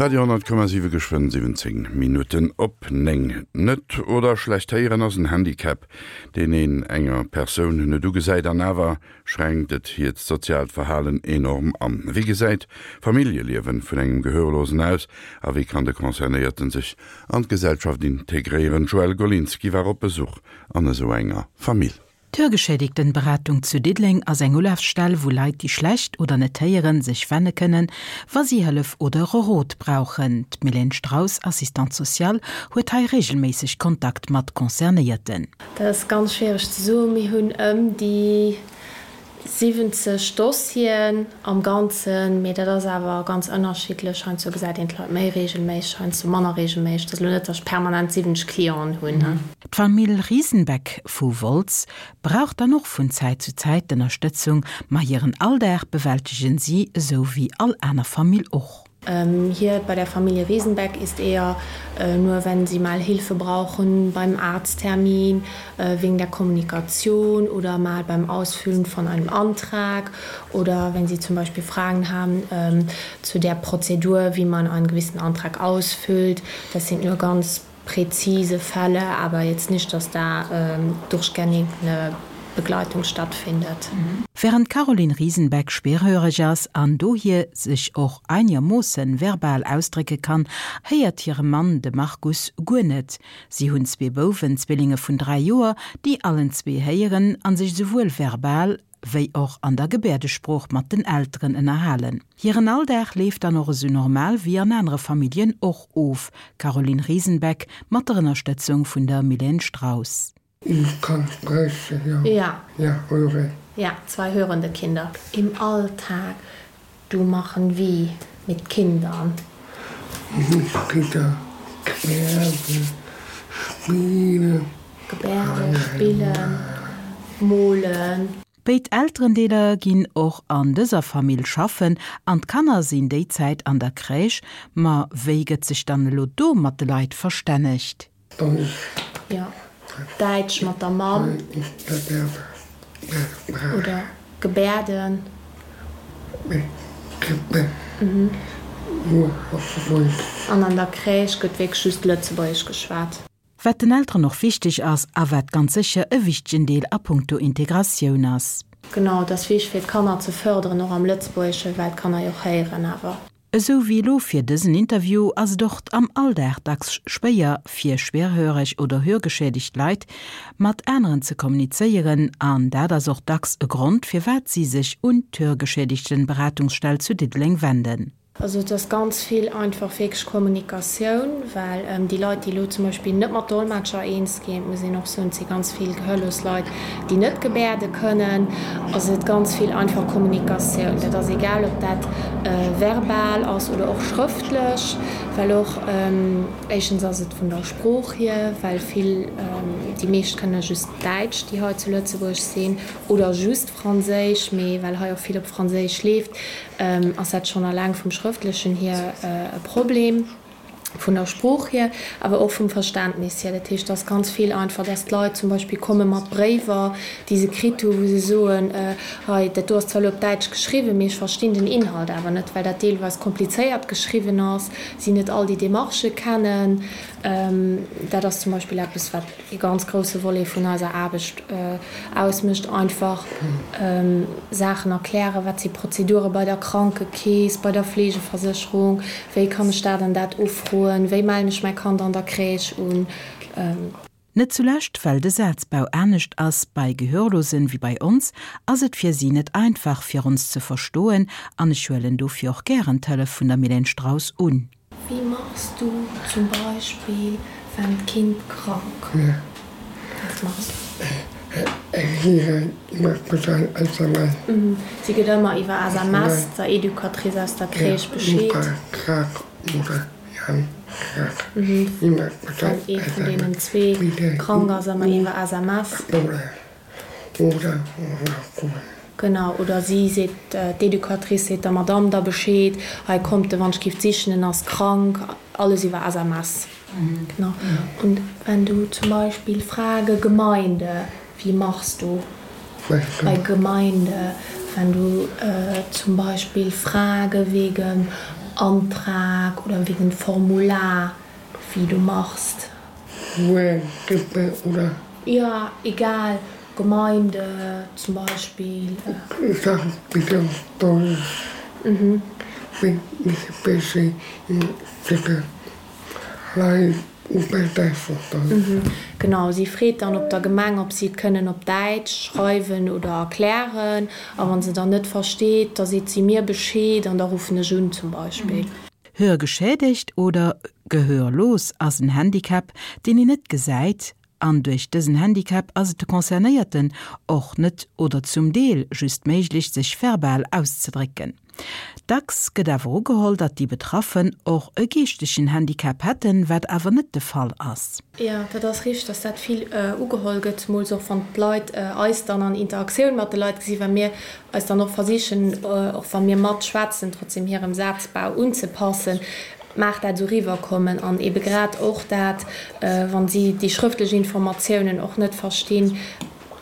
Radio 10,7 Geschwënn 17 Minutten op 9. Net oder schlecht héieren ass en Handicap, deen een enger Persoun net ugesäit an awer schränkt et hiert soziaalt Verhalen enorm an. Wéi gesäit d'Familljeliewen vun engem Gehörlosen aus a wéi kann de Concernéierten sech an d'Gesellschaft integréieren? D'Joëlle Golinski war op Besuch an esou enger Famill. D'Hörgeschädigtenberatung zu Diddeleng ass eng Ulafstell, wou Leit, déi schlecht oder net héieren, sech wenne kënnen, wa si Hëllef oder e Rot brauchen. D'Mylène Straus, Assistante sociale, huet hei reegelméisseg Kontakt mat Concernéierten. Dat ass ganz schwiereg ze soen. Mir hunn ëm déi 70 Dossieren am Ganzen, mee dat ass awer ganz ënnerschiddlech. Heiansdo gesäit een d'Leit méi reegelméisseg, heiansdo manner reegelméisseg. Et ass elo net, datt ech permanent 70 Clienten hunn. D'Famill Riesenbeck vu Wolz brauch dann och vun Zäit zu Zäit d'Ënnerstëtzung, ma hiren Alldag bewältegen si esou wéi all aner Famill och. Hier bei der Familie Riesenbeck ist eher nur wenn sie mal Hilfe brauchen beim Arzttermin, wegen der Kommunikation oder mal beim Ausfüllen von einem Antrag oder wenn sie zum Beispiel Fragen haben zu der Prozedur, wie man einen gewissen Antrag ausfüllt. Das sind nur ganz präzise Fälle, aber jetzt nicht, dass da durchgängig eine Begleitung stattfindet. Während d'Caroline Riesenbeck schwerhöreg ass an dohier sech och einermoossen verbal ausdrécke kann, héiert hire Mann, de Markus, guer net. Si hunn zwee Bouwen, Zwillinge vun 3 Joer, déi allen zwee héieren an sech esouwuel verbal wéi och an der Gebäerdesprooch mat den Elteren ënnerhalen. Hiren Alldag leeft dann och esou normal wéi an anere Familljen och of. Caroline Riesenbeck mat der Ënnerstëtzung vun der Mylène Straus. Ich kann sprechen, ja. Ja. Ja, höre. Ja, zwei hörende Kinder. Im Alltag, du machen wie mit Kindern? Mit Kinder Gebärde spillen. Gebärde spillen, molen. Béid Elterendeeler ginn och an dëser Famill schaffen an d'Kanner sinn déi Zäit an der Crèche. Ma wéi gëtt sech dann elo do mat de Leit verstännegt? Jo, Däitsch mat der Mamm. Oder Gebärden. An an der Crèche gëtt wierklech just Lëtzebuergesch geschwat. Wat den Elteren och wichteg ass a wat ganz sécher e wichtegen Deel a punkto Integratioun ass. Genau, et ass wichteg fir d'Kanner ze fërderen, och am Lëtzebuergeschen, well d'Kanner jo och héieren awer. Esou wéi elo fir dësen Interview ass et och am Alldag dacks schwéier fir schwerhöreg oder hörgeschädigt Leit mat aneren ze kommunizéieren an dat ass och dacks e Grond firwat si sech un d'Hörgeschädigtenberatungsstell zu Diddeleng wenden. Also et ass ganz vill einfach wierklech Kommunikatioun, well déi Leit, déi elo zum Beispill net mat Dolmetscher eens ginn, et muss een och soen, et si ganz vill gehörlos Leit, déi net gebäerde kënnen, ass et ganz vill einfach Kommunikatioun. Dat ass egal, ob dat verbal ass oder och schrëftlech, well och éischtens ass et vun der Sprooch hier, well vill, déi meescht kënne just Däitsch, déi hei zu Lëtzebuerg sinn, oder just Franséisch, mee well hei och vill op Franséisch leeft, ass dat schonn alleng vum Schrëftlechen hier e Problem, vun der Sprooch hier, awer och vum Verständnis hier. Dat heescht, et ass ganz vill einfach, dass d'Leit zum Beispill komme mat Bréiwer, déi se kritt hu wou se soen, hei dat do ass zwar elo op Däitsch geschriwwen, mee ech verstinn den Inhalt awer net, well dat deelweis komplizéiert geschriwwen ass, si net all déi Demarchë kennen. Dat ass zum Beispill eppes, wat ee ganz grousse Volet vun eiser Aarbecht ausmécht, einfach Saachen erklären, wat si Prozedure bei der Krankekeess, bei der Fleegeversécherung, wéi kann ech dat an dat ufroen, wéi mellen ech mäi Kand an der Crèche un. Net zulescht well de Sazbau anescht ass bei Gehörlosen wéi bei ons, ass et fir si net einfach fir ons ze verstoen an ech huelen dofir och gären d'Hëllef vun der Mylène Straus un. Wéi machs du zum Beispill wann d'Kind krank Wat machs du? Si gëtt ëmmer iwwer SMS der Educatrice aus der Crèche Bescheed. Wann ee vun deenen zwee krank ass, ëmmer iwwer SMS. Genau, oder si seet, d'Educatrice seet der Madamm da Bescheed, hei kommt de wann ech giff sichen, en ass krank, alles iwwer SMS. Genau. Und wenn du zum Beispill Frage Gemeinde, wie machst du bei Gemeinde, wenn du zum Beispill Frage wegen. Antrag oder wegen Formular, wie du machst. Grippe oder? Ja, egal, Gemeinde zum Beispiel. Sag bitte auf Deutsch. Mhm. Bin ich busy bitte Lei Mhm. Genau, si freet dann op der Gemeng, ob si et kënnen op Däitsch schreiwen oder erklären. A wa se dann net versteet, da seet si mir Bescheed an da ruffen ech un zum Beispill. Hörgeschädigt oder gehörlos ass en Handicap, deen een net gesäit, an duerch dësen Handicap ass et de Concernéierten och net oder zum Deel just méiglech, sech verbal auszedrécken. Dacks gëtt awer ugeholl, datt déi Betraffen och e geeschtegen Handicap hätten, wat awer net de Fall ass. Jo, dat ass richteg, datt dat vill ugeholl gëtt, zemools och wann d'Leit eis dann an Interaktioun mat de Leit gesinn, well mir eis dann och versichen, och wa mir matschwätzen, trotzdem hirem Sazbau unzepassen, mag dat esou riwwerkommen. An ebe grad och dat, wa si déi schrëftlech Informatiounen och net verstinn,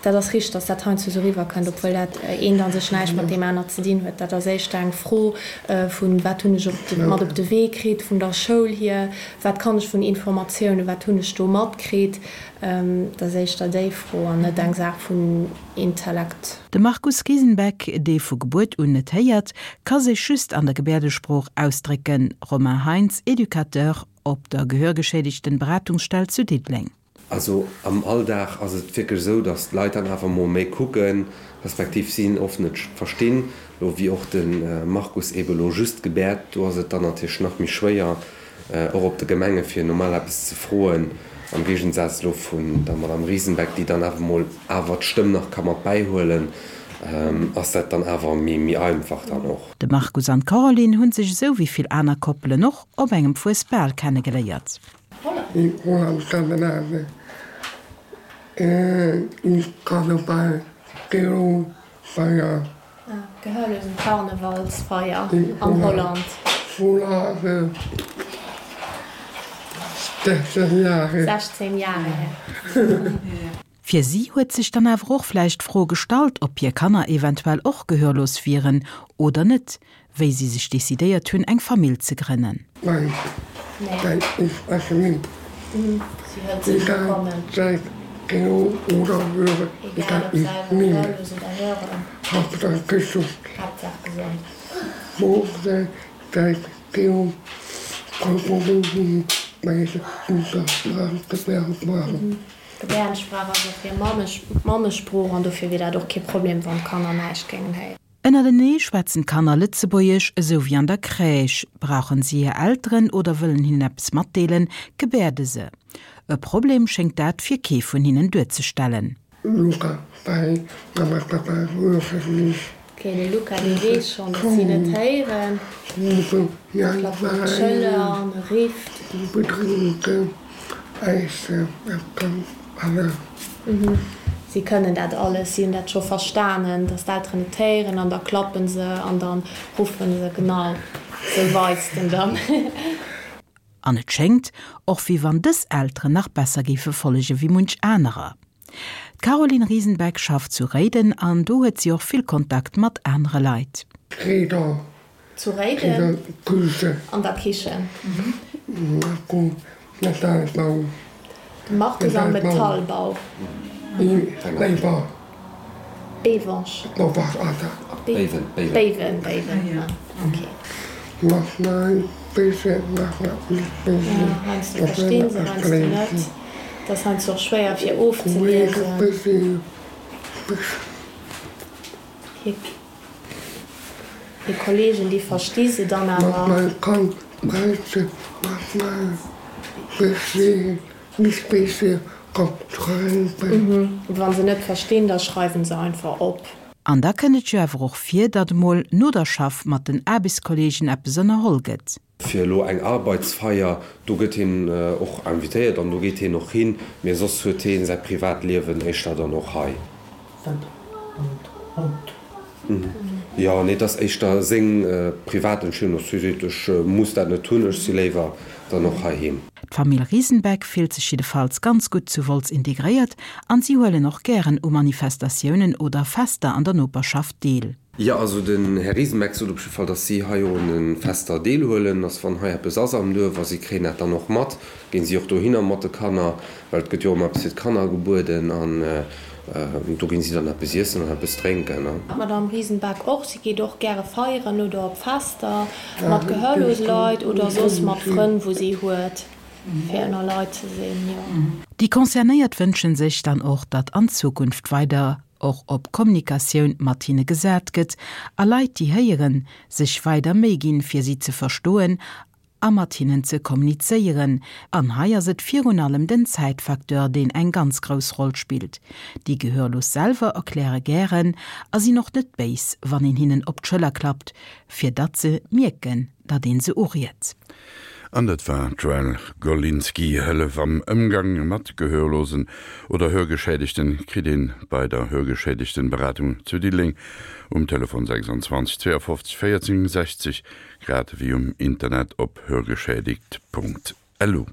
Dat ass richteg, dass dat heiansdo esou eriwwerkënnt, obwuel dat eent a sech näischt mat deem anert ze dinn huet. Dat ass éischter eng Fro vun, Wat hunn ech op de, mat op de Wee kritt vun der Schoul hier? Wat kann ech vun Informatiounen, wat hunn ech do matkritt? Dat ass éischter déi Fro an net eng Saach vun Intellekt. De Markus Riesenbeck, dee vu Gebuert un net héiert, ka sech just an der Gebäerdesprooch ausdrécken. Romain Heintz, Educateur op der Gehörgeschädigten-Beratungsstell zu Diddeleng. Also am Alldag ass et wierklech esou, datt d'Leit dann awer mol méi kucken, respektiv si oft net verstinn. Elo wéi och de Markus eebe elo just gebäert, do ass et dann natierlech nach méi schwéier, och op de Gemenge fir normal eppes ze froen, am Géigensaz elo vun der Madame Riesenbeck, déi dann awer mol awer d'Stëmm nach ka mat bäihuelen, ass dat dann awer méi einfach dann och. De Markus an d'Caroline hunn sech esou wéi vill aner Koppelen och op engem Fuesbal kennegeléiert. In Holland Skandinavien in Karneval Feier. Gehörlosen Karnevalsfeier an Holland. Volare 16 Jahre. 16 Jahre her. Fir si huet sech dann awer och vläicht d'Fro gestallt, ob hir Kanner eventuell och gehörlos wieren oder net, wéi si sech decidéiert hunn, eng Famill ze grënnen. Nein, nein, ich spreche nicht. Egal, sei gehör oder höre, egal, ich nehme. Hauptsache gesund. Wo sei gehör, D'Gebäerdensprach ass och hir Mammesprooch an dofir wier dat och kee Problem, wann d'Kanner näischt géingen héieren. Ënnertenee schwätzen d'Kanner Lëtzebuergesch, esou wéi an der Crèche. Brauchen si hir Elteren oder wëllen hinnen eppes matdeelen, gebäerde se. E Problem schéngt dat fir kee vun hinnen duerzestellen. Luca, Bei Mama, Papa höre ich. Ok, de Luca, dee weess schonn, datt si net héieren. Klappt op d'Schëller an e rifft. Si kënnen dat alles, si hunn dat scho verstanen, datt d'Elteren net héieren an da klappe se an da ruffe se, genau, sou weist en dann. An et schéngt och, wéi wann dës Elteren nach besser géife follege wéi munch anerer. D'Caroline Riesenbeck schafft zu Réiden an do huet si och vill Kontakt mat anere Leit. Réider Zu Réiden an der Kichen. De Markus am Metallbau. Béiwensch. Béiwen, Béiwen, ok. Heiansdo verstinn se, heiansdo net. Et ass heiansdo och schwéier fir ofzeliesen. Hir Kollegen, déi versti se dann awer. Wa se net verstinn, da schreiwen se einfach op. An da kënnt et jo awer och vir, datt emol no der Schaff mat den Aarbechtskolleegen eppes ënnerholl gëtt. Fir elo eng Arbeitsfeier, do gëtt hien och invitéiert an do geet hien och hin, mee soss huet hie säi Privatliewen éischter dann och hei. Jo, nee, et ass éischter seng privat Entscheedung, dass hie seet, ech muss dat net hunn, ech si léiwer dann och heiheem. D'Famill Riesenbeck fillt sech jiddefalls ganz gutt zu Wolz integréiert an si huelen och gären u Manifestatiounen oder Fester an der Noperschaft deel. Jo, also den Här Riesenbeck sot op jidde Fall, datt si hei och un de Fester deelhuelen, datt wann hei eppes ass am Duerf, a si kréien dat dann och mat, ginn si och dohinner mat de Kanner, well et gëtt jo och ëmmer eppes fir d'Kanner gebueden an do ginn si dann eppes iessen an eppes drénken. D'Madame Riesenbeck och, si geet och gäre feieren oder op Fester mat gehörlose Leit oder soss mat Frënn, wou si huet fir ënner Leit ze sinn, jo. Déi Concernéiert wënschen sech dann och, datt an Zukunft weider och op Kommunikatioun mat hinne gesat gëtt a Leit, déi héieren, sech weider Méi ginn, fir si ze verstoen a mat hinnen ze kommunizéieren. An hei ass et virun allem den Zäitfacteur, deen eng ganz grouss Roll spillt. Déi Gehörlos selwer erkläre gären a sinn och net béis, wann een hinnen op d'Schëller klappt, fir datt se mierken, datt een se uriet. An dat war d'Joëlle Golinski. Hëllef am Ëmgang mat Gehörlosen oder Hörgeschädegten kritt een bei der Hörgeschädegtenberatung zu Diddeleng um Telefon 26 52 14 60, grad ewéi um Internet op hörgeschädigt.lu.